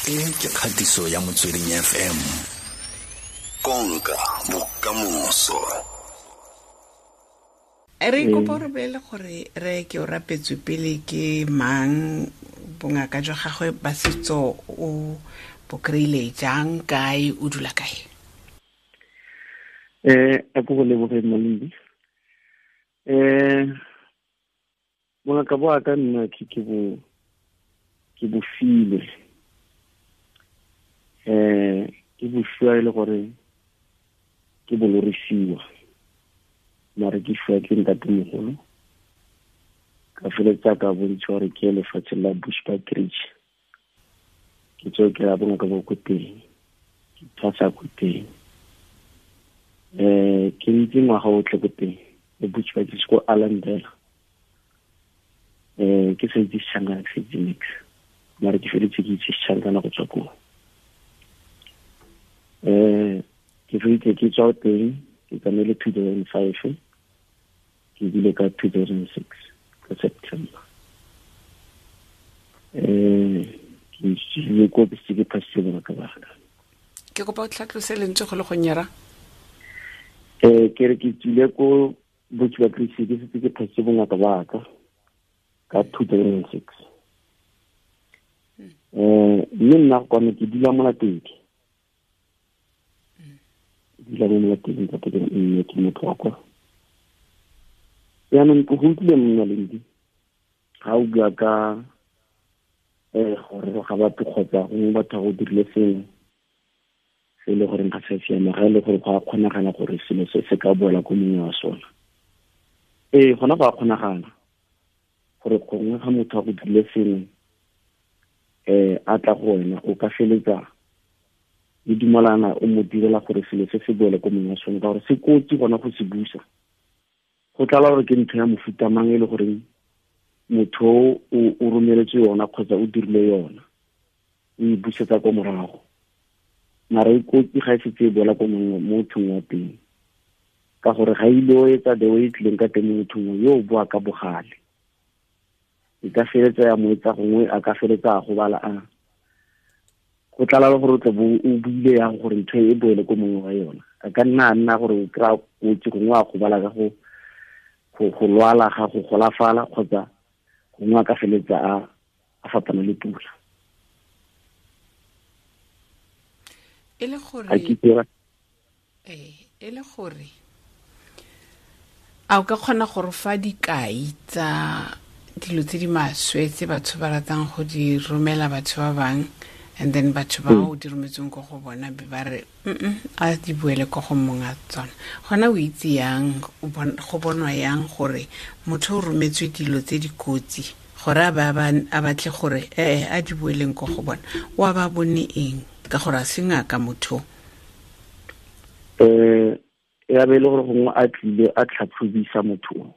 E ke kgatiso ya Motsweding FM. Konka bokamoso. Re kopa re bolele gore re ke o rapetswe pele ke mang, bongaka jwa gagwe ba setso o bo kry-ile jang, kae, o dula kae? A ko go leboge, Malindi. Bongaka bo aka nna ke bo filwe, ke bo fiwa e le gore ke bo lorisiwa, mare ke fiwa ke ntatemogolo. Ka feletsa ka bontshiwa gore ke lefatshe la Bushbuckridge, ke tseo ke ya bongaka bo ko teng, ke thwasa ko teng. Ke ntse ngwaga otlhe ko teng le Bushbuckridge ko Allandale. Ke sa itse Sechangana, ke sa itse nix, mare ke feletse ke itse Sechangana go tswa koo. Ke feletse ke tswa teng, ke tsamaile 2005, ke bile ka 2006 ka September. Ke tsile ko ke se ke phasitse bongaka ba ka. Ke kopa o tlhatlose lentswe go le go nyera. Ke re ke tsile ko Bushbuckridge, ke setse ke phasitse bongaka ba ka ka 2006. Mme nna kwano ke dula Molatedi. Dula mo Molatedi ka teng, mme ke motho wa kwa. Jaanong ke go utlwile monna Lendi ga o bua ka gore ga batho kgotsa gongwe batho ba go dirile sengwe se e le goreng ga se siama, ga e le gore go a kgonagala gore selo se se ka boela ko mongwe wa sona. Ee, gona go a kgonagala gore gongwe ga motho a go dirile sengwe, a tla go wena, o ka feletsa le dumalana o mo direla gore selo se se boele ko mongwe wa sone, ka gore se kotsi gona go se busa. Go tlala gore ke ntho ya mofuta mang e le goreng motho o romeletse yona kgotsa o dirile yona, o e busetsa ko morago. Mara e kotsi ga e setse e boela ko mongwe mo mothong wa teng, ka gore ga ile o etsa the way e tlileng ka teng mo mothong yo o boa ka bogale. E ka feletsa ya mo etsa gongwe a ka feletsa a gobala, a go tlala le gore o tle bo o buile yang gore ntho e boele ko mongwe wa yona. A ka nna a nna gore o kry-a kotsi gongwe a gobala ka go lwala ga go golafala, kgotsa gongwe a ka feletsa a fapana le pula. E le gore A ke dira? Ee, e le gore a o ka kgona go re fa dikai tsa dilo tse di maswe tse batho ba ratang go di romela batho ba bang, and then batho ba o di rometseng ko go bona be ba re a di boele ko go mong a tsona? Gona o itse yang, go bonwa yang gore motho o rometswe dilo tse di kotsi gore a ba a batle gore a di boeleng ko go bona? O a ba bone eng, ka gore a se ngaka motho? Ya be e le gore gongwe a tlile a tlhatlhobisa motho o,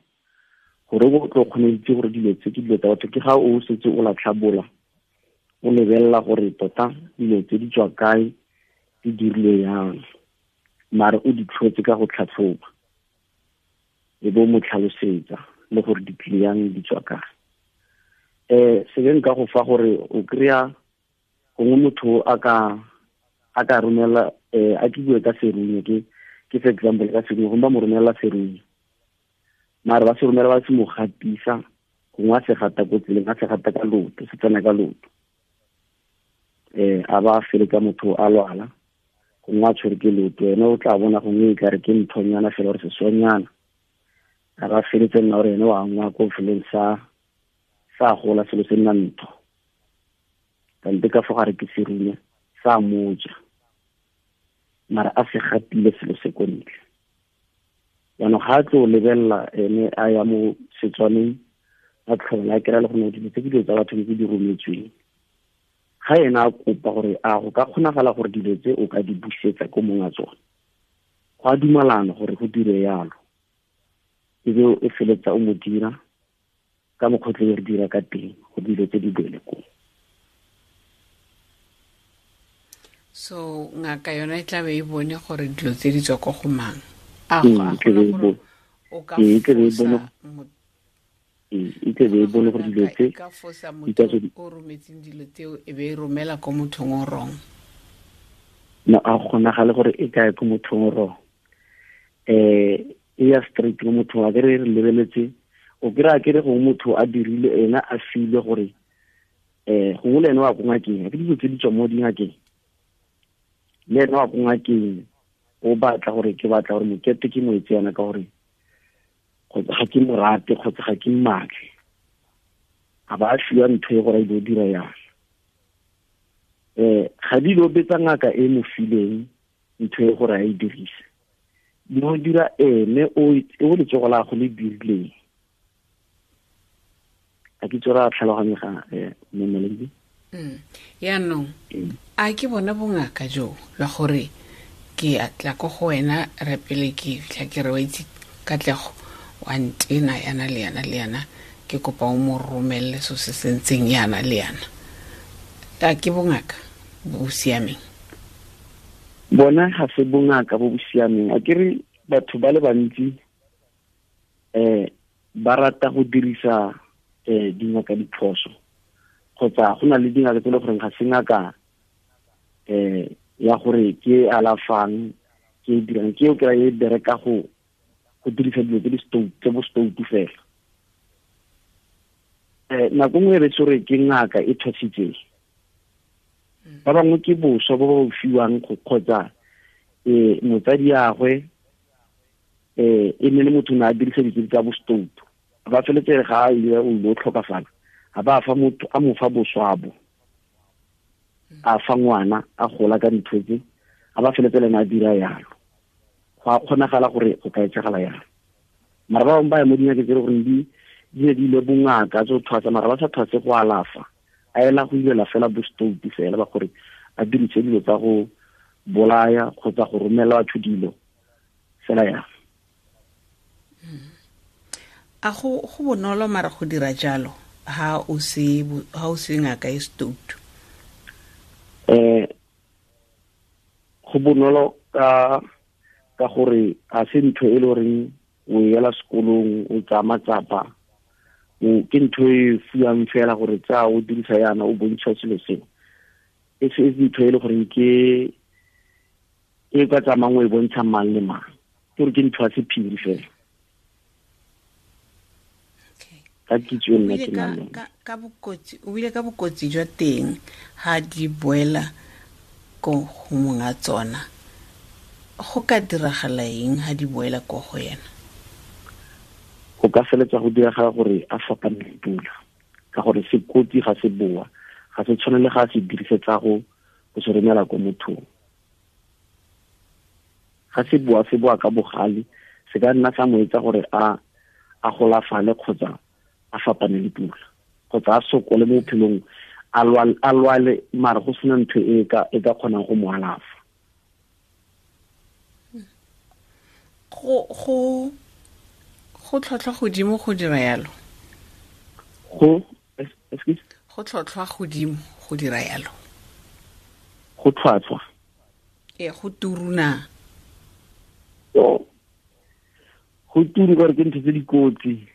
gore o tlo kgone go itse gore dilo tse ke dilo tsa batho. Ke ga o setse o latlhabola, o lebelela gore tota dilo tse di tswa kae, di dirile yang, mare o di tlhotse ka go tlhatlhoba, e bo mo tlhalosetsa le gore di tlile yang, di tswa kae. Se ke nka go fa gore o kry-a gongwe motho a ka romela, a ke bue ka serunye, ke for example ka serunye, gongwe ba mo romela serunye, mare ba se romela ba se mo gatisa, gongwe a se gata ko tseleng, a se gata ka loto, se tsena ka loto. A ba feletsa motho a lwala, gongwe a tshwere ke loto, ene o tla bona gongwe e kare ke nthonyana fela gore sesonyana, a ba feletse nna gore ene wa angwa ko feleng sa gola selo se nna ntho, kante ka fo gare ke serunye sa moja, mara a se gatile selo se ko ntle. Jaanong ga a tlo lebelela ene a ya mo Setswaneng, a tlhola a kry-a le gone dilo tse ke dilo tsa batho tse di rometsweng. Ga ena a kopa gore a go ka kgonagala gore dilo tse o ka di busetsa ko mong a tsone, go a dumalana gore go dire yalo, e be o feletsa o mo dira ka mokgwa o tle re dira ka teng go dilo tse di boele koo. So ngaka yona e tla be e bone gore dilo tse di tswa ko go mang? A go a gona gore o ka E tla be e bone fosa mo- E tle be e bone gore dilo tse ka fosa motho o rometseng dilo tseo e be e romela ko mothong o wrong. No, a kgonagale gore e kae ko mothong o wrong. E ya straight ko mothong, a ke re lebeletse, o kry-a ke re gongwe motho a dirile ena a filwe gore gongwe le ene wa ko ngakeng, ke dilo tse di tswa mo dingakeng, le ene wa ko ngakeng o batla gore ke batla gore mokete ke mo etse yana ka gore kgotsa ga ke mo rate kgotsa ga ke mmatle, a ba a fiwa ntho e gore a ile go dira yana. Ga di lo betsa ngaka e mo fileng ntho e gore a e dirise, di mo dira ene o letsogo la go le dirileng. A ke tsora tlhaloganyega mme Malindi? Yaanong a ke bona bongaka jo la gore ke a tla ko go wena re pele ke fitlha ke re wa itse Katlego wa ntena yana le yana le yana, ke kopa o mo romelele so se se ntseng yana le yana. A ke bongaka bo bo siameng? Bona ga se bongaka bo bo siameng. A ke re batho ba le bantsi ba rata go dirisa dingaka diphoso, kgotsa go na le dingaka tse e le goreng ga se ngaka ya gore ke alafang, ke e dirang, ke o kry-a e bereka go dirisa dilo tse di tse bo stoutu fela. Nako nngwe e re tsore ke ngaka e thwasitseng, ba bangwe ke boswa bo ba fiwang kgotsa motsadi yagwe e ne le motho o ne a dirisa dilo tsa bo stoutu, ba feletse ga a ile o ile o tlhokafala, a ba fa motho a mo fa boswa bo, a fa ngwana a gola ka ntho tse, a ba feletse le ena a dira yalo. Go a kgonagala gore go ka etsagala yalo. Mara ba bangwe ba ya mo dingakeng tse e le goreng di ne di ile bongaka tse go thwasa, mara ba sa thwase go alafa, a ela go ilela fela bo stoutu fela ba gore a dirise dilo tsa go bolaya kgotsa go romela batho dilo fela yalo. A go bonolo mara go dira jalo ha o se ngaka e stoutu? Go bonolo ka gore a se ntho e le goreng o ela sekolong o tsaya matsapa, ke ntho e fiwang fela gore tsa o dirisa yana o bontsha selo seo. E se ntho e le goreng ke e ka tsamayang o e bontsha mang le mang, ke gore ke ntho ya sephiri fela. Ka kitso nna ke nang le yone. Ka bokotsi, o bile ka bokotsi jwa teng ha di boela ko go monga tsona, go ka diragala eng ha di boela ko go yena? Go ka feletsa go diragala gore a fapane le pula, ka gore sekotsi ga se boa, ga se tshwane le ga se dirisetsa go se romela ko mothong. Ga se boa, se boa ka bogale, se ka nna sa mo etsa gore a golafale kgotsa a fapane le pula, kgotsa a sokole mo bophelong, a lwale mara go sena ntho e ka kgonang go mo alafa. Go tlhotlhwa godimo go dira yalo? Go, excuse? Go tlhotlhwa godimo go dira yalo. Go tlhwatlhwa? Ee, go turuna. Go turu gore ke ntho tse dikotsi.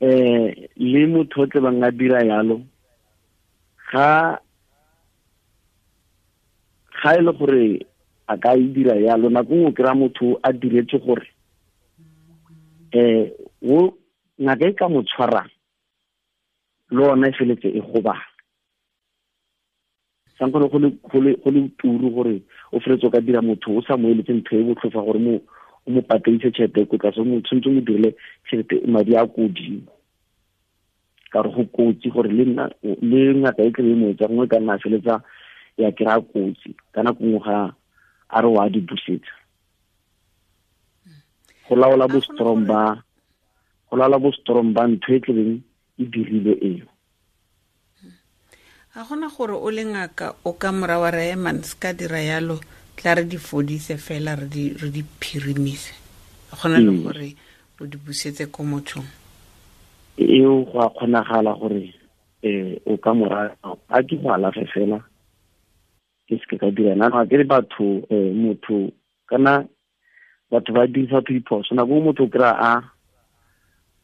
Le motho o tle bang a dira yalo, ga e le gore a ka e dira yalo, nako nngwe o kry-a motho a diretse gore o ngaka e ka mo tshwarang le ona e feletse e gobala. Sankgone go le turu gore o feletse o ka dira motho o sa mo eletse ntho e botlhofo gore o mo patedise tšhelete ko tlase, o tshwanetse o mo dirile tšhelete madi a ko godimo, ka gore go kotsi gore le ngaka e tlebe e mo etsa, gongwe ka nna a feletsa ya kry-a kotsi ka nako nngwe ga a re wa di busetsa. Go laola bo strong ba ntho e tlebeng e dirile eo. A gona gore o le ngaka o ka mora wa re man se ka dira yalo, tla re di fodise fela re di phirimise, gona le gore o di busetse ko mothong? Eo go a kgonagala gore o ka mora a ke go alafe fela, ke se ka dira nna ga ke re batho motho kana batho ba dirisa batho diphoso. Nako nngwe motho o kry-a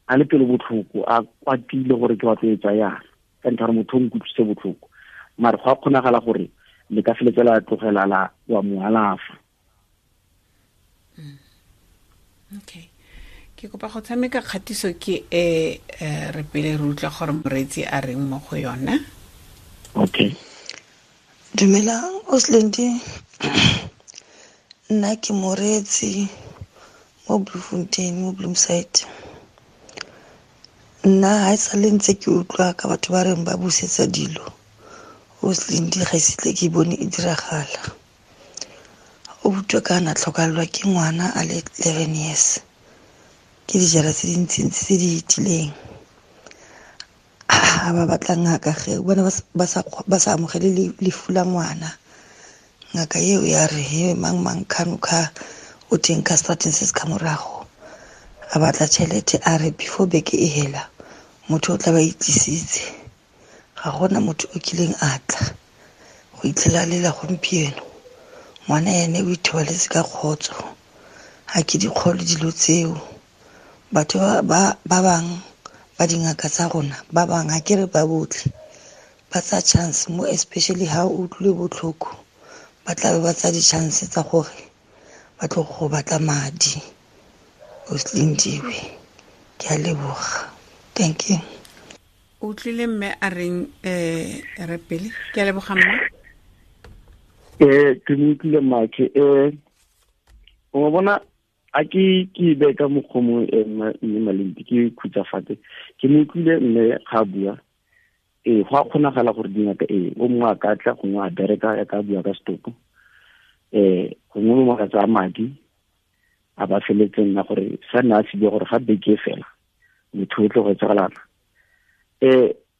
A le pelo botlhoko, a kwatile gore ke batlo etsa yana, ka ntlha gore motho o nkutlwise botlhoko. Mare go a kgonagala gore le ka feletse la tlogela la wa mo alafa. Okay. Ke kopa go tshameka kgatiso ke e re pele re utlwa gore moreetsi a reng mo go yona. Okay. Dumelang Oslendi. Nna ke moreetsi mo Bloemfontein, mo Bloemside. Nna ha e sale ntse ke utlwa ka batho ba reng ba busetsa dilo. Oslendi ga ise tle ke bone e diragala. O utlwa ka na tlhokalelwa ke ngwana a le 11 years. Ke dijara tse dintsintsi tse di itileng. A ba batla ngaka ge bona ba sa amogele lefu la ngwana. Ngaka eo ya re he mang mang khano kha o teng ka strateng se se ka morago. A batla tšhelete a re before beke e hela motho o tla ba itlisitse. Ga gona motho o kileng a tla go itlhela lela gompieno. Ngwana ene o ithobaletse ka kgotso. Ha ke dikgolo dilo tseo. Batho ba bang ba dingaka tsa rona, ba bang ha ke re ba botlhe, ba tsa chance mo especially ha o utlwile botlhoko, ba tla be ba tsa di-chance tsa gore ba tlo go batla madi. Oslindiwe, ke a leboga. Thank you. O utlwile mme a reng re pele? Ke a leboga mma. Ke mo utlwile mmakhe. O bona a ke be ka mokgomo mme Malindi ke khutsafatse. Ke mo utlwile mme ga bua. Go a kgonagala gore dingaka o mongwe a ka tla gongwe a bereka ya ka bua ka setopo. Gongwe mongwe a ka tsaya madi a ba feletseng nna gore sa nna a se bua gore ga beke fela motho o tlo go etsagalana.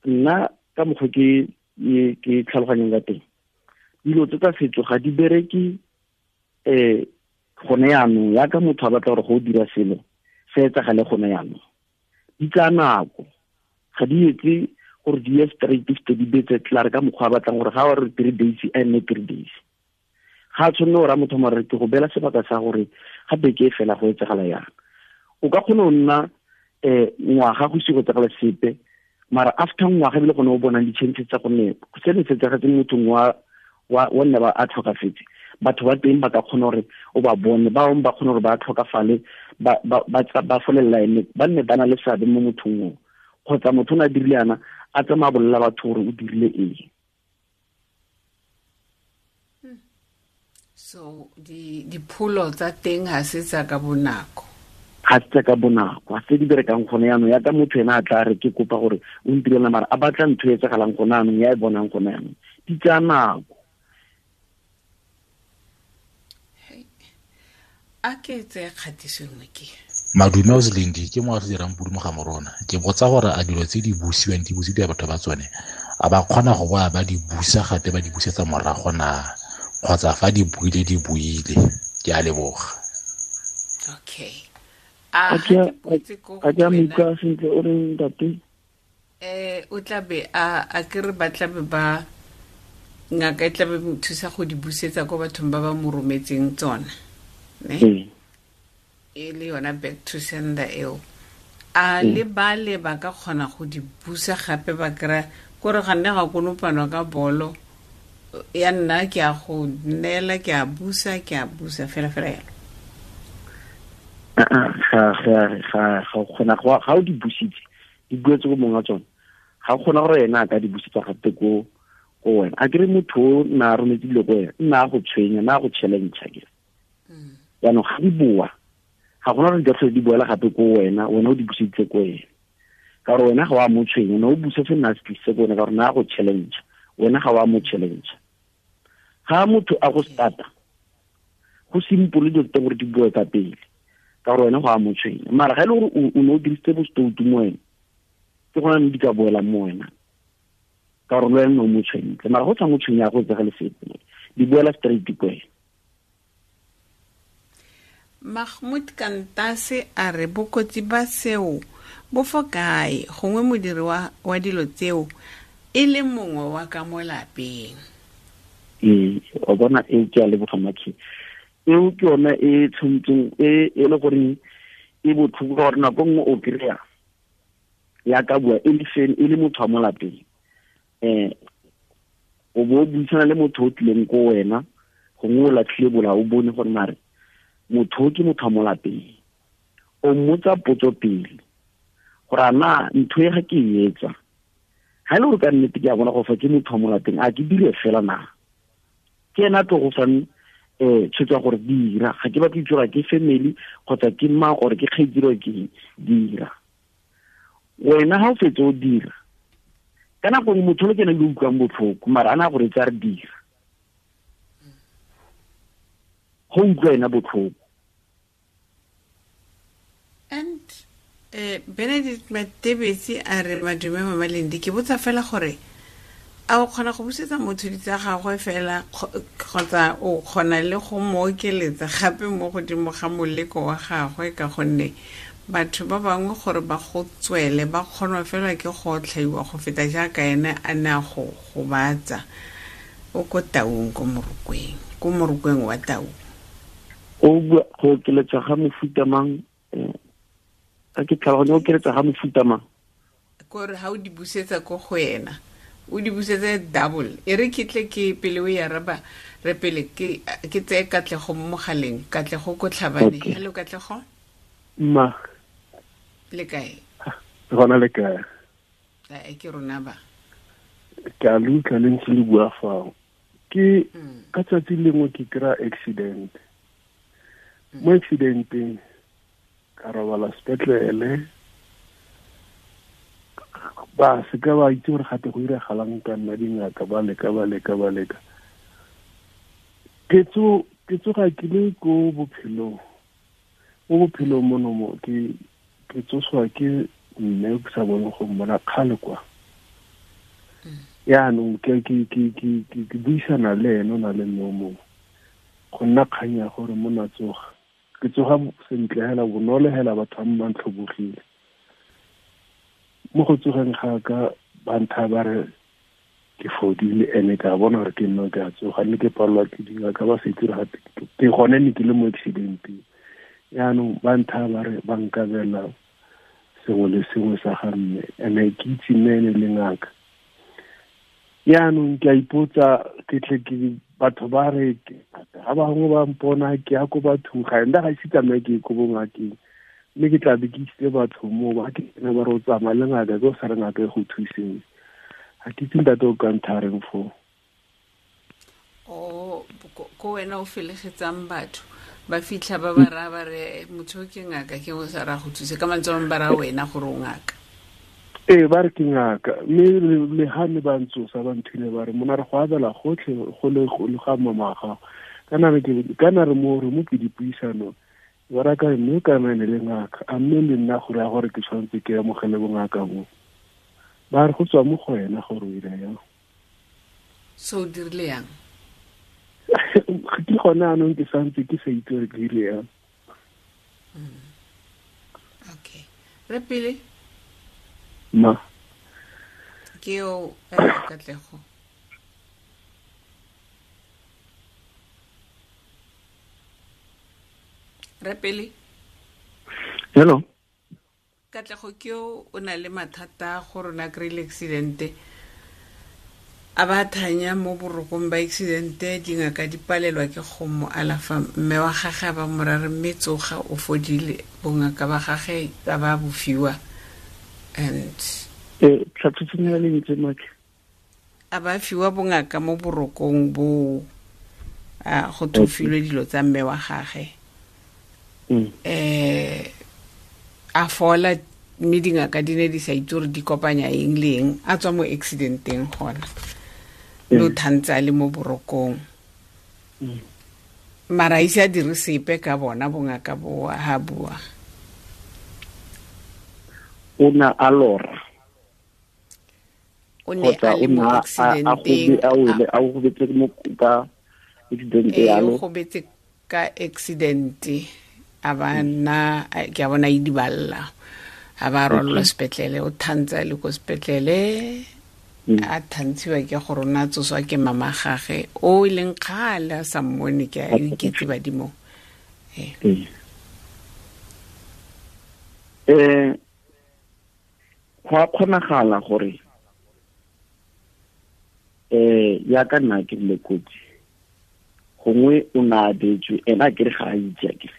Nna ka mokgwa ke tlhaloganyang ka teng, dilo tse tsa setso ga di bereke gone yaanong. Yaka motho a batla gore go dira selo se etsagale gone yaanong, di tsaya nako. Ga di etse gore di ye straight fete di betse tlare ka mokgwa a batlang gore ga wa re 3 days a nne 3 days. Ga a tshwanne gore a motho mare ke go beela sebaka sa gore ga beke e fela go etsagala yang. O ka kgona go nna ngwaga go ise go etsagala sepe, mara after ngwaga ebile gone o bonang di-chances tsa gonne se ne se etsagetse mothong wa nne ba a tlhokafetse, batho ba teng ba ka kgona gore o ba bone, ba bangwe ba kgona gore ba tlhokafale, ba folelela ene, ba nne ba na le seabe mo mothong oo. Kgotsa motho o ne a dirile yana, a tsamaya a bolelela batho gore o dirile eng. So dipholo tsa teng ha se tsa ka bonako. Ga se tsa ka bonako, ga se di berekang gone yaanong. Yaka motho ena a tla re ke kopa gore o ntirela, mara a batla ntho e etsagalang gone yaanong, ya e bonang gone yaanong. Di tsaya nako. A ke tseye kgatiso nngwe ke. Madume Oslendi ke mo a dirang pudu mo ga morona. Ke botsa gore a dilo tse di busiwang di busiwa batho ba tsone, a ba kgona go boa ba di busa gape ba di busetsa morago na, kgotsa fa di buile di buile. Ke a leboga. Okay. A ke botse ko A ke a mo utlwa sentle o reng ntate? O tla be a ke re ba tla be ba ngaka e tla be thusa go di busetsa ko bathong ba ba mo rometseng tsona. Ne? E le yona back to sender eo. A le ba le ba ka kgona go di busa gape ba kry-a kore ga nne ga konopanwa ka bolo ya nna ke a go neela, ke a busa, ke a busa fela fela yalo. Ga kgona ga o di busitse, di buetse ko mongwe wa tsone, ga kgona gore ena a ka di busetsa gape ko wena. A kere motho o na a rometse dilo ko wena, nna a go tshwenya, nna a go challenge ke. Jaanong ga di boa, ga gona gore di ka tlhole di boela gape ko wena, wena o di buseditse ko wena. Ka gore wena ga wa mo tshwenya, wena o busa se nna a se tlisitse ko wena, ka gore nna a go challenge, wena ga wa mo challenge. Ga motho a go starta, go simple dilo tse gore di boe ka pele, ka gore wena ga wa mo tshwenya. Mara ga e le gore o ne o dirisitse bostoutu mo wena, ke gona ne di ka boela mo wena, ka gore le wena o mo tshwentse. Mara go tshwa mo tshwenya go tsega le sepe, di boela straight ko wena. Mahmoud Kantase a re bokotsi ba seo bo fo kae, gongwe modiri wa dilo tseo e le mongwe wa ka mo lapeng. O bona e ke a leboga Makhi. Eo ke yona e tshwantseng e le gore e botlhoko ka gore nako nngwe o kry-a Ya ka bua e le fen e le motho wa mo lapeng, o bo buisana le motho o tlileng ko wena, gongwe o latlhile bola, o bone gore mare motho o ke motho wa mo lapeng. O mmotsa potso pele gore a na ntho e ga ke e etsa, ga e le gore ka nnete ke a bona go fa ke motho wa mo lapeng, a ke dire fela na? Ke ena a tlo go fang tshwetso ya gore dira, ga ke batle itse gore ke family kgotsa ke mang or ke kgaitsedi or ke eng, dira. Wena ga o fetse o dira, ka nako nngwe motho le ke ene yo utlwang botlhoko, mara a na gore tsa re dira, go utlwa ena botlhoko. And Benedict Matebetsi a re, madume Mama Lendi, ke botsa fela gore a o kgona go busetsa motho di tsa gagwe fela kgotsa o kgona le go mo okeletsa gape mo godimo ga moleko wa gagwe, ka gonne batho ba bangwe gore ba go tswele ba kgonwa fela ke go otlhaiwa go feta jaaka ene a ne a go gobatsa. O ko Taung, ko Morokweng, ko Morokweng wa Taung. O bua go okeletsa ga mofuta mang? A ke tlhaloganya, o okeletsa ga mofuta mang? Kore ha o di busetsa ko go ena, o di busetse double. E re ke tle ke pele o e araba, re pele ke tseye Katlego mo mogaleng. Katlego ko Tlhabane. Okay. Hello Katlego. Ma. Le kae? Gona le kae? E ke rona ba. Ke a le utlwa le ntse le bua fao. Ke ka tsatsi lengwe ke kry-a accident. Mo accidenteng ka robala sepetlele, ba se ka ba itse gore gape go iragalang ka nna, dingaka ba leka, ba leka, ba leka. Ke tsoga ke le ko bophelong. Mo bophelong mono mo, ke tsoswa ke mme ke sa bone go mmona kgale kwa. Yaanong ke buisana le ene, o na le mme o mongwe. Go nna kgang ya gore monna tsoga. Ke tsoga sentle hela, bonolo hela, batho ba ba ntlhobogile. Mo go tsogeng ga ka, ba ntha ba re ke fodile, ene ka bona gore ke nna ke a tsoga, mme ke palelwa ke dingaka ba se itse gore gape ke gone ne ke le mo accidenteng. Yaanong ba ntha ba re ba nkabela sengwe le sengwe sa ga mme, ene ke itse mme ene le ngaka. Yaanong ke a ipotsa, ke tle ke batho ba re ga bangwe ba mpona ke ya ko bathong, ga nna ga ise tsamaye ke ye ko bongakeng, mme ke tla be ke isitse batho moo, ba ke tsena ba re o tsamaya le ngaka, ke o sa re ngaka e go thuseng. Ga ke itse ntate o ka ntha reng foo. O, ko wena o felegetsang batho, ba fitlha ba ba raya ba re, motho o ke ngaka, ke o sa raya go thuse. Ka mantswe a mangwe ba raya wena gore o ngaka. Ee, ba re ke ngaka, mme le ha ne ba ntsosa, ba nthile ba re, monna re go abela gotlhe, go le go le ga mama wa gago. Kana re ke, kana re mo, re mo ke dipuisanong. Ba ra ka mme ka nna le ngaka, a mme le nna gore ya gore ke tshwanetse ke amogele bongaka bo. Ba re go tswa mo go wena gore o ira yang. So o dirile yang? Ke gone anong ke santse ke sa itse gore ke dirile yang. Okay. Re pele? Ma. Ke yo, Katlego. Re pele? Hello. Katlego ke yo o na le mathata gore o na kry-ile accident-e. A ba thanya mo borokong ba accident-e, dingaka di palelwa ke go mo alafa. Mme wa gagwe a ba mo rare, mme tsoga o fodile, bongaka ba gagwe ba ba bofiwa. And tlhatlhotseng ya lentswe, Maki. A ba fiwa bongaka mo borokong bo, a go thofilwe dilo tsa mme wa gagwe. A fola, mme dingaka di ne di sa itse gore di kopanya eng le eng, a tswa mo accidenteng gona. Mme o thantse a le mo borokong. Mara a ise a dire sepe ka bona bongaka bo ha bua. O ne a lora. O ne Kgotsa a le o mo ne a accidenteng, a wele, a gobetse mo ka accident Ee, yalo. o gobetse ka accident, a ba nna, a, ke a bona e di balla. A ba rwalelwa sepetlele, o thantse a le ko sepetlele, a thantshiwa ke gore o ne a tsoswa ke mama gage, o e leng kgale a sa mmone, ke a iketse badimong. Ee. Go a kgonagala gore ya ka nna ke le kotsi gongwe o na abetswe ena a kere ga a itse a kere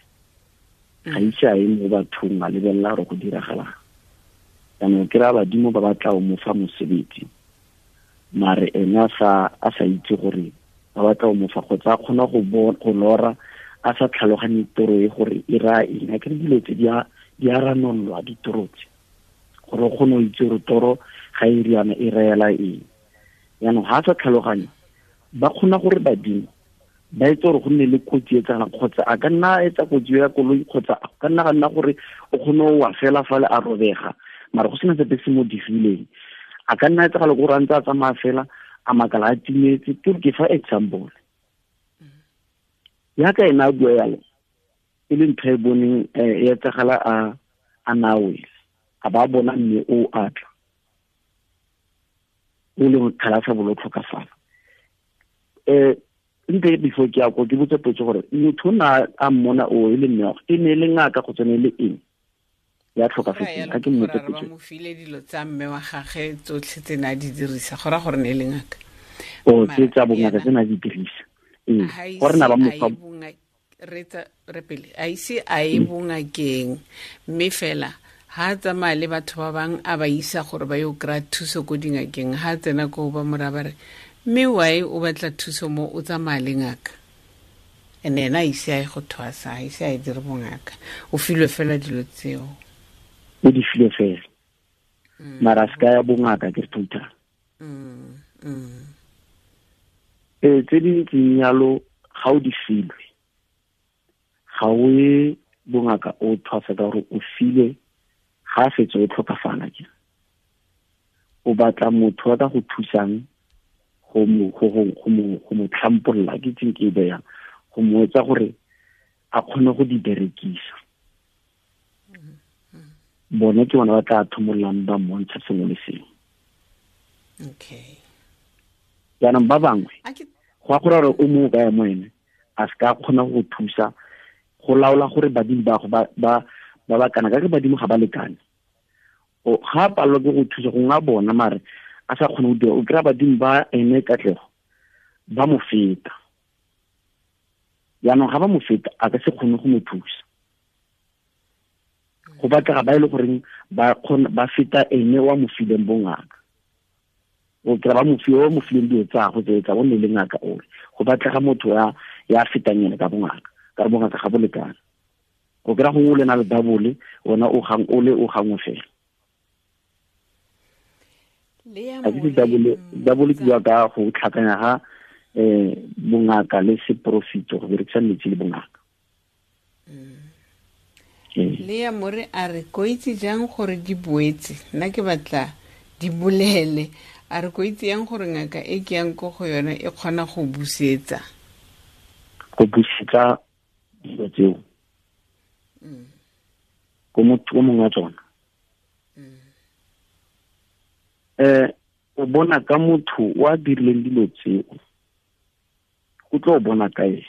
ga itse a ye mo bathong a lebelela gore go diragalang. Jaanong ke raya badimo ba batla o mo fa mosebetsi mare ene a sa itse gore ba batla o mo fa kgotsa a kgona go lora a sa tlhaloganye toro e gore e raya eng. A kere dilo tse di a ranololwa ditoro tse gore o kgone go itse gore toro ga e riana e reela eng. Jaanong ga a sa tlhaloganye ba kgona gore badimo ba etse gore go nne le kotsi e tsagalang kgotsa a ka nna a etsa kotsi ya koloi kgotsa a ka nna ga nna gore o kgone go wa fela fale a robega mara go sena sepe se mo digileng. A ka nna etsagala gore a ntse a tsamaya fela a makala a timetse. Ke fa example yaka ena a bua yalo e le ntho e boneng e etsagala a nawele a ba bona mme o atla o leng kgala sa bolo tlhokafala. Nte before ke ya ko ke botse potso gore motho na a mmona o e le mme e ne le ngaka go tsene le eng ya tlhokafetseng a ke mmotse potso. Ba mo file dilo tsa mme wa gagwe tsotlhe tse na di dirisa go ra gore ne le ngaka o tse tsa bongaka tse na di dirisa gore na ba mo fa re pele a ise a e bongakeng mme fela ha tsamaya le batho ba bang a ba isa gore ba yo kry-a thuso ko dingakeng. Ha tsena ko ba mora ba re mme why o batla thuso mo o tsamaya le ngaka ene ena a ise a ye go thwasa a ise a e dire bongaka o filwe fela dilo tseo o di filwe fela mara se ka ya bongaka ke total. Tse di ntseng yalo ga o di filwe ga o ye bongaka o thwasa ka gore o filwe ga a fetse o tlhokafala ke o batla motho wa ka go thusang go mo tlhampolola ke tseng ke e beyang go mo etsa gore a kgone go di berekisa. Bone ke bona ba tla thomollang ba mmontsha sengwe le sengwe. Okay. Jaanong ba bangwe go a gore gore o mo kae mo ene a se ka kgona go thusa go laola gore badimo ba go ba ba kana ka ke badimo ga ba lekane. O ga palelwa ke go thusa go nga bona mare a sa kgone go dira o kry-a badimo ba ene katlego ba mo feta. Jaanong ga ba mo feta a ka se kgone go mo thusa. Go batlega ba e le goreng ba kgona ba feta ene wa mo fileng bongaka. O kry-a ba mo file o mo fileng dilo tsa go tse tsa bone le ngaka ore go batlega motho ya fetang ene ka bongaka ka bongaka ga bo lekane. O kry-a gongwe o le na le double ona o gang o le o gangwe fela. A ke double ke bua ka go tlhakanya ga bongaka le seporofito go berekisa metsi le bongaka. Le ya more a re ko itse jang gore di boetse nna ke batla di bolele a re ko itse yang gore ngaka e ke yang ko go yone e kgona go busetsa dilo tseo ko motho o mongwe wa tsona. O bona ka motho wa dirileng dilo tseo o tlo bona ka ene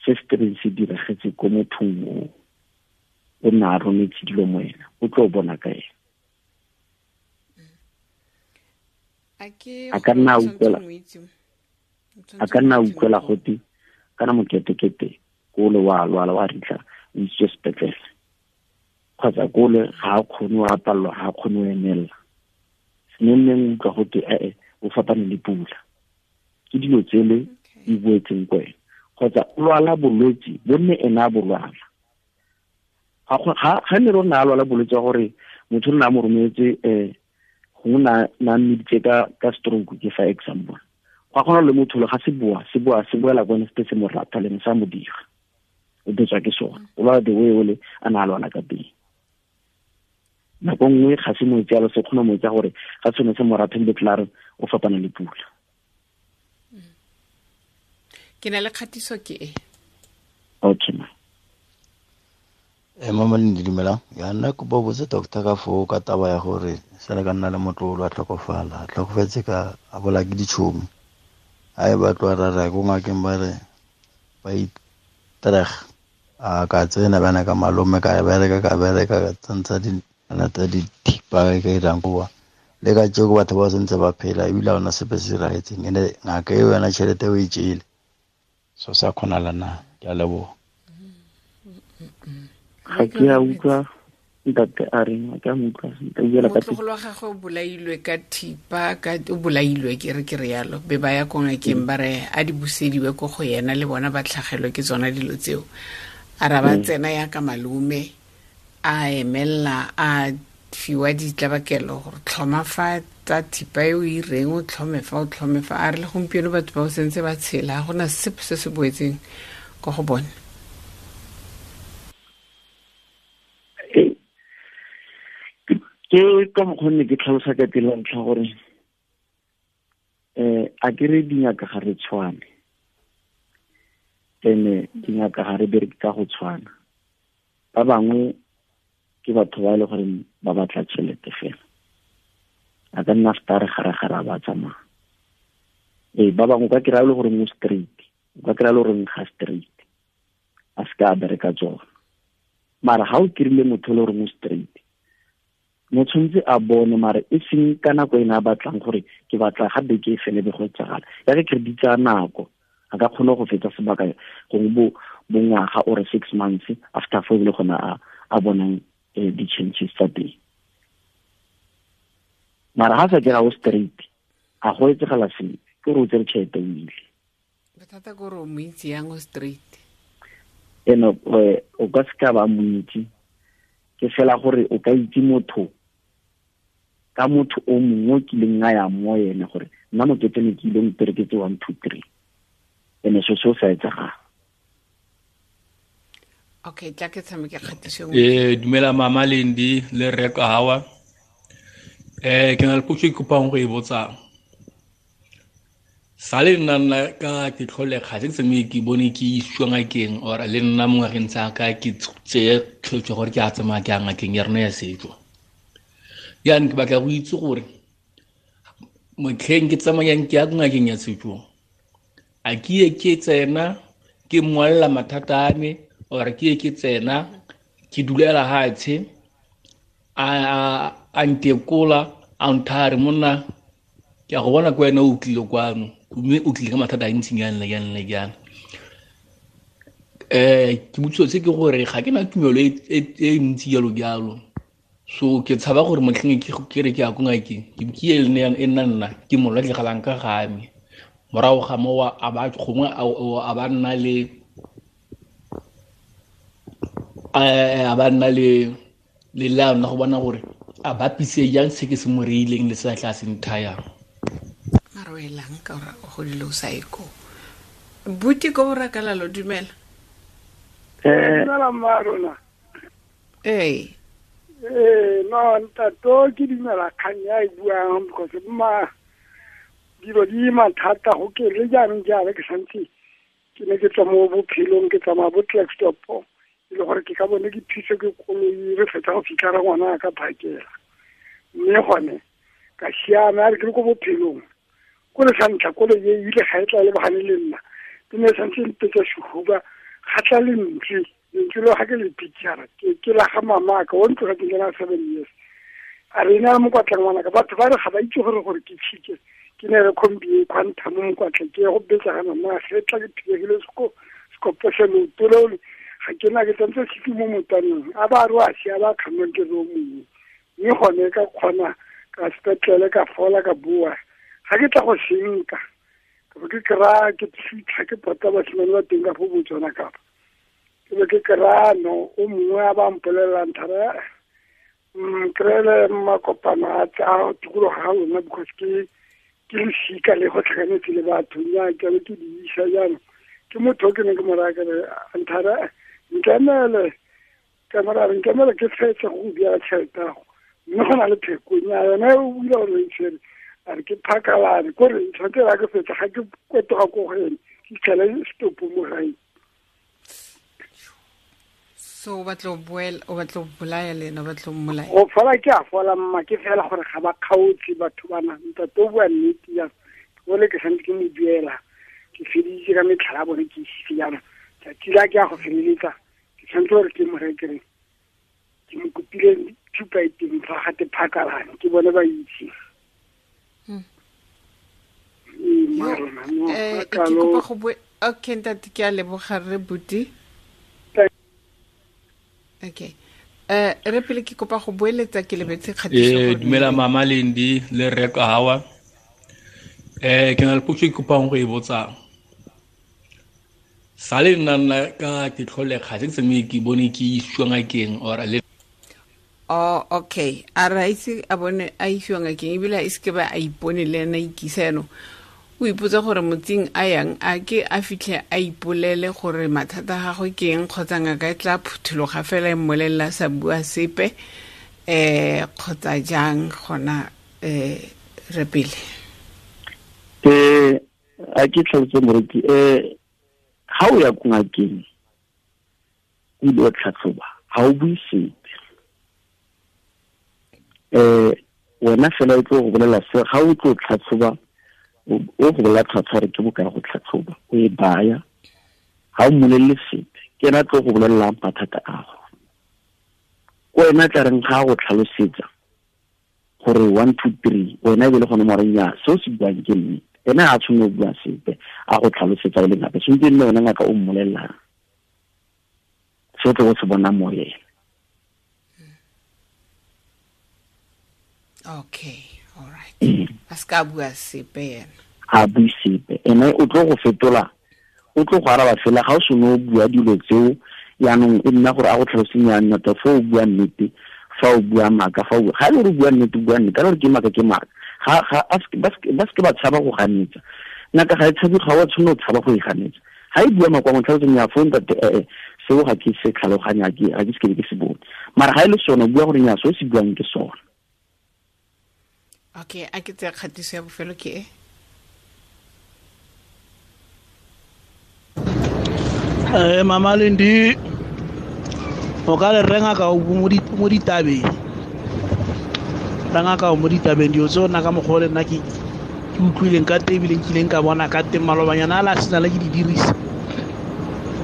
se se tlabeng se diragetse ko mothong o o na a rometse dilo mo ena o tlo bona ka ene. A ka nna a utlwela gote kana moketekete kole wa lwala wa ritla o isitswe sepetlele kgotsa kole ga a kgone o apallwa ga a kgone o emelela senenneng utlwa gote ee o fapane le pula ke dilo tsele di boetseng ko ena kgotsa o lwala bolwetse bo nne ena a bo lwala. Ga ne rona a lwala bolwetse wa gore motho o nna a mo rometse gongwe na mmeditse ka stroke ke fa example go a kgona le motho le ga se boa se boela ko ene se se mo rata le sa mo dira o betswa ke sona o lwala the way ole a na a lwala ka teng. Nako nngwe ga se mo etse yalo se kgona mo etsa gore ga sone se mo ratha ebile tlare o fapana le pula. Ke na le kgatiso ke e. Okay ma. Mama le dumela ya nna kopa botse doctor ka foo ka taba ya gore sele ka nna le motlolo a tlhokofala tlhokofetse ka a bola ke ditšhomi a e batlo ra ra ko ngakeng ba re ba itreg a ka tsena bana ka malome ka bereka ka tsentsa di A lata dithipa e ka irang koa le ka tšeko batho ba sentse ba phela ebile ga ona sepe se diragetseng ene ngaka eo yona tšhelete o e tšele so sa kgonala na. Ke a leboga. Ga ke a utlwa ntate a reng, a ke a mo utlwa sentle, o buela ka motlogolo wa gagwe o bolailwe ka thipa, ka o bolailwe ke re ke re yalo, be ba ya ko ngakeng ba re a di busediwe ko go yena le bona ba tlhagelwe ke tsona dilo tseo. A ra ba tsena ya ka malome a emella a fiwa ditlabakelo gore tlhoma fa tsa thipa e o e reng o tlhome fa o tlhome fa. A re le gompieno batho ba o sentse ba tshela, ga gona sepe se se boetseng ko go bone. Ke ka mokgwa ke tlhalosa ka pele ntlha gore a ke re dingaka ga re tshwane, ene dingaka ga re bereke ka go tshwana. Ba bangwe ke batho ba e le gore ba batla tšhelete fela, a ka nna feta re gare-gare a ba tsamaya. Ba bangwe o ka kry-a le gore mo straight, o ka kry-a le gore ga straight, a se ka a bereka tsona. Mara ga o kry-ile motho le gore mo straight, mo tshwanetse a bone, mare e seng ka nako ena a batlang gore ke batla ga beke e fele be go etsagala. Ya ke credit tsa nako, a ka kgona go fetsa sebaka gongwe bo ngwaga or 6 months after fo e le gona a bonang di-changes tsa teng. Mara ha sa kry-a o straight, a go etsagala sepe, ke gore o tsere tšhelete o ile. Bothata ke gore o mo itse yang o straight? Eno, o ka se ka ba mo itse, ke fela gore o ka itse motho ka motho o mongwe o kileng a ya mo ene gore nna mokete ne ke ile o mpereketse 1 2 3, ene so seo sa etsagala. Okay, tla ke tshameke kgatiso e nngwe. Dumela mama Lendi le rre Kahawa. Ke na le potso e ke kopang go e botsang. Sa le nna nna ka ke tlholega, ga se ke tsamaye ke bone ke isiwa ngakeng, or le nna mo ngwageng tsa ka ke tseye tshwetso gore ke a tsamaya ke ya ngakeng ya rona ya setso. Jaanong ke batla go itse gore motlheng ke tsamayang ke ya ngakeng ya setso, a ke ye ke tsena ke mmolelela mathata a me, or ke ye ke tsena ke dulela hatshe a ntekola a nthare monna ke a go bona ke wena o tlile kwano, mme o tlile ka mathata a ntsinyana le jang le jang. Ke botšiso se ke gore ga ke na tumelo e ntsi jalo jalo. So ke tshaba gore motlheng ke re ke ya ko ngakeng, ke ke e nne e nna nna ke mo latlhegelang ka ga me. Morago ga moo a ba gongwe a ba nna le, a ba nna le le leano la go bona gore a bapise jang se ke se mo reileng le se a tla se nthayang. Mara o elang ka gore o godile o sa ye koo. Buti ko borakalalo, dumela. Dumela mma rona. Ee. No, ntato ke dumela kgang ya e buang because mma dilo di mathata go ke le jaanong jaana ke santse ke ne ke tswa mo bophelong ke tsamaya bo Klerksdorp, e le gore ke ka bone ke thuso ke koloi re fetsa go fitlha re ngwana ka phakela. Mme gone ka siama, a re ke le ko bophelong ko le sa ntlha koloi e ile ga e tla lebagane le nna, ke ne santse mpetsa sehuba ga tla lentswe, lentswe leo ga ke le picture ke la ga mamaka o ntlogetseng ke na 7 years. A re ena mokwatla ngwanaka, batho ba re ga ba itse gore ke tshike, ke ne re khombi e quantum mo mokwatla ke go betsa ga mama ge tla ke thibegile sekopo se leoto leo le, ga ke na ke tsentse sefi mo motaneng, a ba re wa sia ba kgannwang ke re o mongwe. Mme gone ka kgona ka sepetlele ka fola ka boa, ga ke tla go senka ka be ke kry-a ke fitlha ke pota basimane ba teng ka fo Botswana kapa. Ke be ke kry-a no o mongwe a ba mpolelelang thara, kry-ele makopano a tsa tikologo ga lona because ke losika le go tlhakanetse le batho, nnyaa ke be ke di isa jaanong. Ke motho o ke neng ke mo raya ke re, nthara, nkemele, ka mo raya, nkemele ke fetse go go duela tšhelete ya gago. Mme go na le pheko, nnyaa, yona e o bula gore o e tshwere, a re ke phakalane, ko re tshwanetse ra ke fetsa, ga ke kwetoga ko go ene, ke fitlhele setopo mo gae. So o batla go boela, o batla go bolaya le ena, o batla go mmolaya? Go fola ke a fola mma, ke fela gore ga ba kgaotse batho bana. Ntate o bua nnete jang, o le ke santse ke mo duela, ke feditse ka metlhala ya bone ke isitse jaanong. Tsatsi la ke ya go feleletsa, ke tshwanetse gore ke mo rekere, ke mo kopile Thupa e teng fa gate phakalane ke bone ba itse. Ee, ke kopa go bue. Okay, ntate, ke a leboga re buti. Okay, re pele ke kopa go boeletsa, ke lebetse kgatiso. Dumela mama Lendi le rre Kahawa. Ke na le potso e kopang go e botsang. Sa le nna nna ka ke tlholega se ke tsamaye ke bone ke isiwa ngakeng or le Oh, okay. A re a ise a bone a isiwa ngakeng, ebile a ise ke ba a ipone le ena ikisa. Yanong o ipotsa gore motsing a yang a ke a fitlhe a ipolele gore mathata a gagwe ke eng, kgotsa ngaka e tla phuthologa fela e mmolelela a sa bua sepe, kgotsa jang gona, re pele? A ke tlhalose moreki, ha o ya ko ngakeng o ile wa tlhatlhoba, ha o bue sepe. Wena fela o tlo go bolela se ga o tlo tlhatlhoba, o go bolela tlhwatlhwa re ke bokae go tlhatlhoba, o e baya, ga o mmolelele sepe, ke ena tlo go bolelelang mathata a go. Ko wena tla reng ga go tlhalosetsa gore 1 2 3, wena e be le gone mo reng ya seo se buang ke nnete, ena a tshwanetse go bua sepe a go tlhalosetsa o le ngaka, tshwanetse e nne wena ngaka o mmolelelang se o tlo go se bona mo ena. Okay, all right. A se ka bua sepe yena. A bue sepe. Ene o tlo go fetola, o tlo go araba fela ga o seno o bua dilo tseo, yaanong e nna gore a go tlhaloseng ya nna ta fa o bua nnete, fa o bua maaka, fa o bua, ga e le gore o bua nnete, o bua nnete, ga e le gore ke maaka, ke maaka. Ga, ga, a se, ba se, ba se ke ba tshaba go ganetsa. Ngaka ga e tshabe, ga o a tshwanela go tshaba go e ganetsa. Ga e bua maaka, wa mo tlhaloseng ya fo ntate, seo ga ke se tlhaloganya, ga ke se ke be ke se bone. Mara ga e le sone, o bua gore nnyaa, seo se buang ke sone. Okay, a ke tsaya kgatiso ya bofelo ke e. Mama Lendi, o ka le renga ka o mo ditabeng. Renga ka o mo ditabeng, dilo tseo nna ka mokgwa o le nna ke utlwileng ka teng, ebile nkileng ka bona ka teng malobanyana a la sena le ke di dirisa.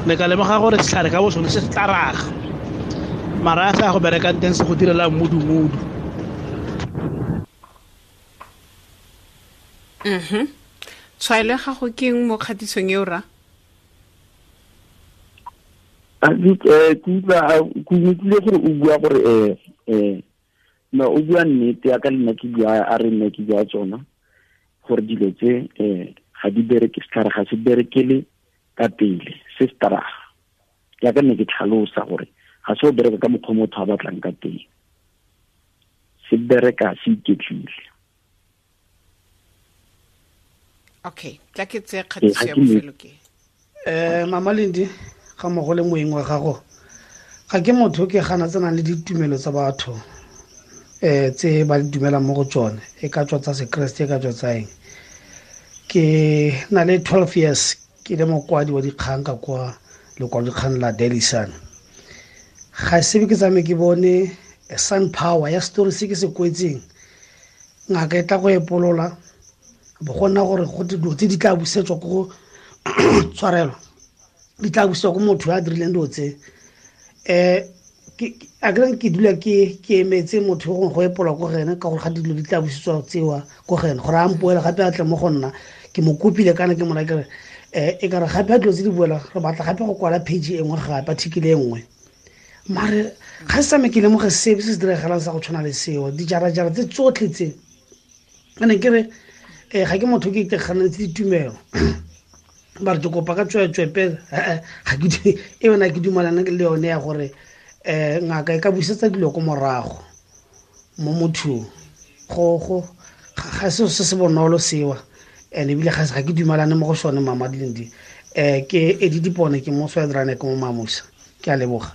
Ne ka lemoga gore setlhare ka bo sone se tla raga. Mara a sa go berekang teng se go direla mmudu-mmudu. Tshwaelo ya gago ke eng mo kgatisong eo, ra? A ke utlwa, a, ke utlwile gore o bua gore, no, o bua nnete ya ka le nna ke bua, a re nna ke bua tsona, gore dilo tse, ga di bereke, setlhare ga se berekele ka pele, se se taraga. Ya ka nne ke tlhalosa gore ga se o bereka ka mokgwa motho a batlang ka teng, se bereka se iketlile. Okay, tla ke tseye kgatiso ya bofelo ke. Mama Lendi, ga mmogo le moeng wa gago, ga ke motho ke gana tsenang le ditumelo tsa batho, tse ba di dumelang mo go tsone, e ka tswa tsa sekreste, e ka tswa tsa eng. Ke na le 12 years ke le mokwadi wa dikgang ka kwa lekwalodikgang la Daily Sun. Ga se be ke tsamaye ke bone Sun Power ya story se ke se kwetseng, ngaka e tla go epolola, bo go nna gore go dilo tse di tla busetswa ko go tshwarelo, di tla busetswa ko motho a dirileng dilo tse. A ke reng ke dula ke emetse motho yo gongwe go epola ko go ene, ka gore ga dilo di tla busetswa tsewa ko go ene, gore a mpoele gape a tle mo go nna. Ke mo kopile kana ke mo raya ke re, e ka re gape a dilo tse di boela, re batla gape go kwala page e nngwe gape, article e nngwe. Mare ga se tsamaye ke lemoge sepe se se diragalang sa go tshwana le seo, dijarajara tse tsotlhe tse. A ne ke re, ga ke motho ke iteganetse ditumelo. Ba re ke kopa ka tsweetswe pele, ga ke e yona ke dumalana le yone ya gore, ngaka e ka busetsa dilo ko morago mo mothong. Ga se se bonolo sewa, and ebile ga ke dumalane mo go sone, Mama Lendi. Ke Eddie Dipone, ke mo Swedrane, ke mo Mamusa. Ke a leboga.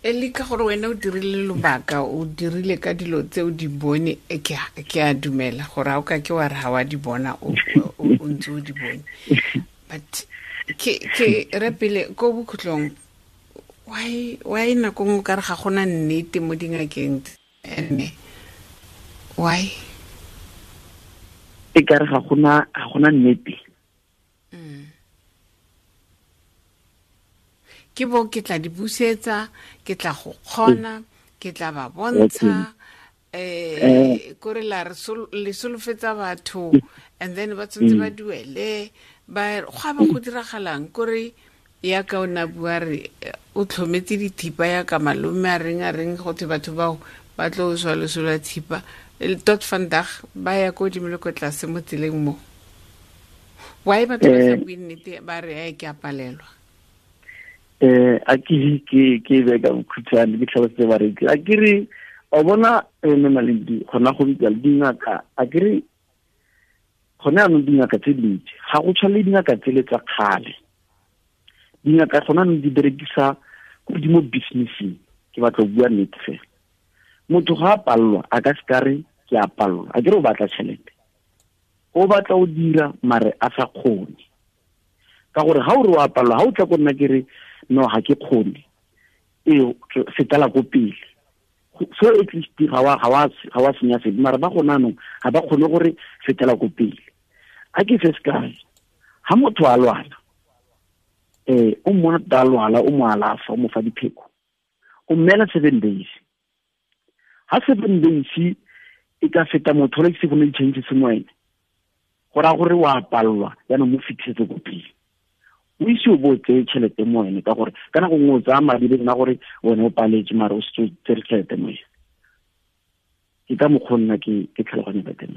E le ka gore wena o dirile lobaka, o dirile ka dilo tse o di bone, ke a dumela gore ha o ka ke wa re ha wa di bona, o ntse o di bone. But ke re pele ko bokhutlong, why nako nngwe o ka re ga gona nnete mo dingakeng tse? Ene, why? E ka re ga gona nnete. Ke bo ke tla di busetsa, ke tla go kgona, Ke tla ba bontsha kore la re le solofetsa batho and then ba tshwanetse ba duele ba go a ba go diragalang kore ya ka o na bua re o tlhometse dithipa ya ka malome a reng go thwe batho bao ba tlo swa loso lwa thipa tot vandag ba ya ko godimo le ko tlase mo tseleng mo. Why batho ba sa bue nnete ba re a ke a palelwa? A ke be ka bokhutshwane ke tlhalosetse bareki. A ke re o bona mme Malindi gona go bitsa le dingaka, a ke re gone anong dingaka tse dintsi ga go tshwane le dingaka tsele tsa kgale. Dingaka gona anong di berekisa ko di mo businesseng, ke batla go bua nnete fela. Motho ga a palelwa a ka se ka re ke a palelwa, a ke re o batla tšhelete, o batla o dira mare a sa kgone. Ka gore ga o re o a palelwa, ga o tla ko nna ke re no ga ke kgone, ee fetela ko pele. So at least ga wa senya sepe, mara ba gona anong ga ba kgone gore fetela ko pele. A ke se sekai, ga motho a lwala, o mmona tota a lwala, o mo alafa, o mo fa dipheko, o mmeela 7 days. Ha 7 days e ka feta motho le se go ne di-changes mo ene, go raya gore wa palelwa, jaanong mo fitlhetse ko pele. O ise o bo o tseye tšhelete mo ene, ka gore ka nako nngwe o tsaya madi le nna gore wena o paletse, mare o setse o tsere tšhelete mo ene. Ke ka mokgwa nna ke tlhaloganya ka teng.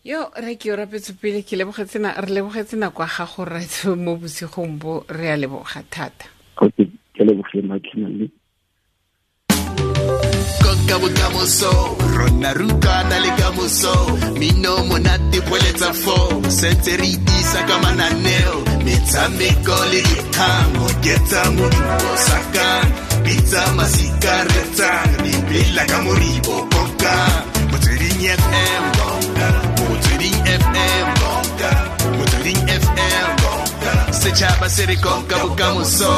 Yo re ke o rapetse pele, ke lebogetse re lebogetse nako ya gago rraetsho mo bosigong bo, re a leboga thata. Okay, ke lebogile Matlhale. Konka bokamoso, rona rutwana le kamoso, mino monate poeletsa fo, sentse re itisa ka mananeo, metshameko le dikgang, oketsa modumo sakang, bitsa masika retsang, dipela ka moribo konka, Motsweding FM konka, Motsweding FM konka, Motsweding FM konka, setšhaba se re konka bokamoso.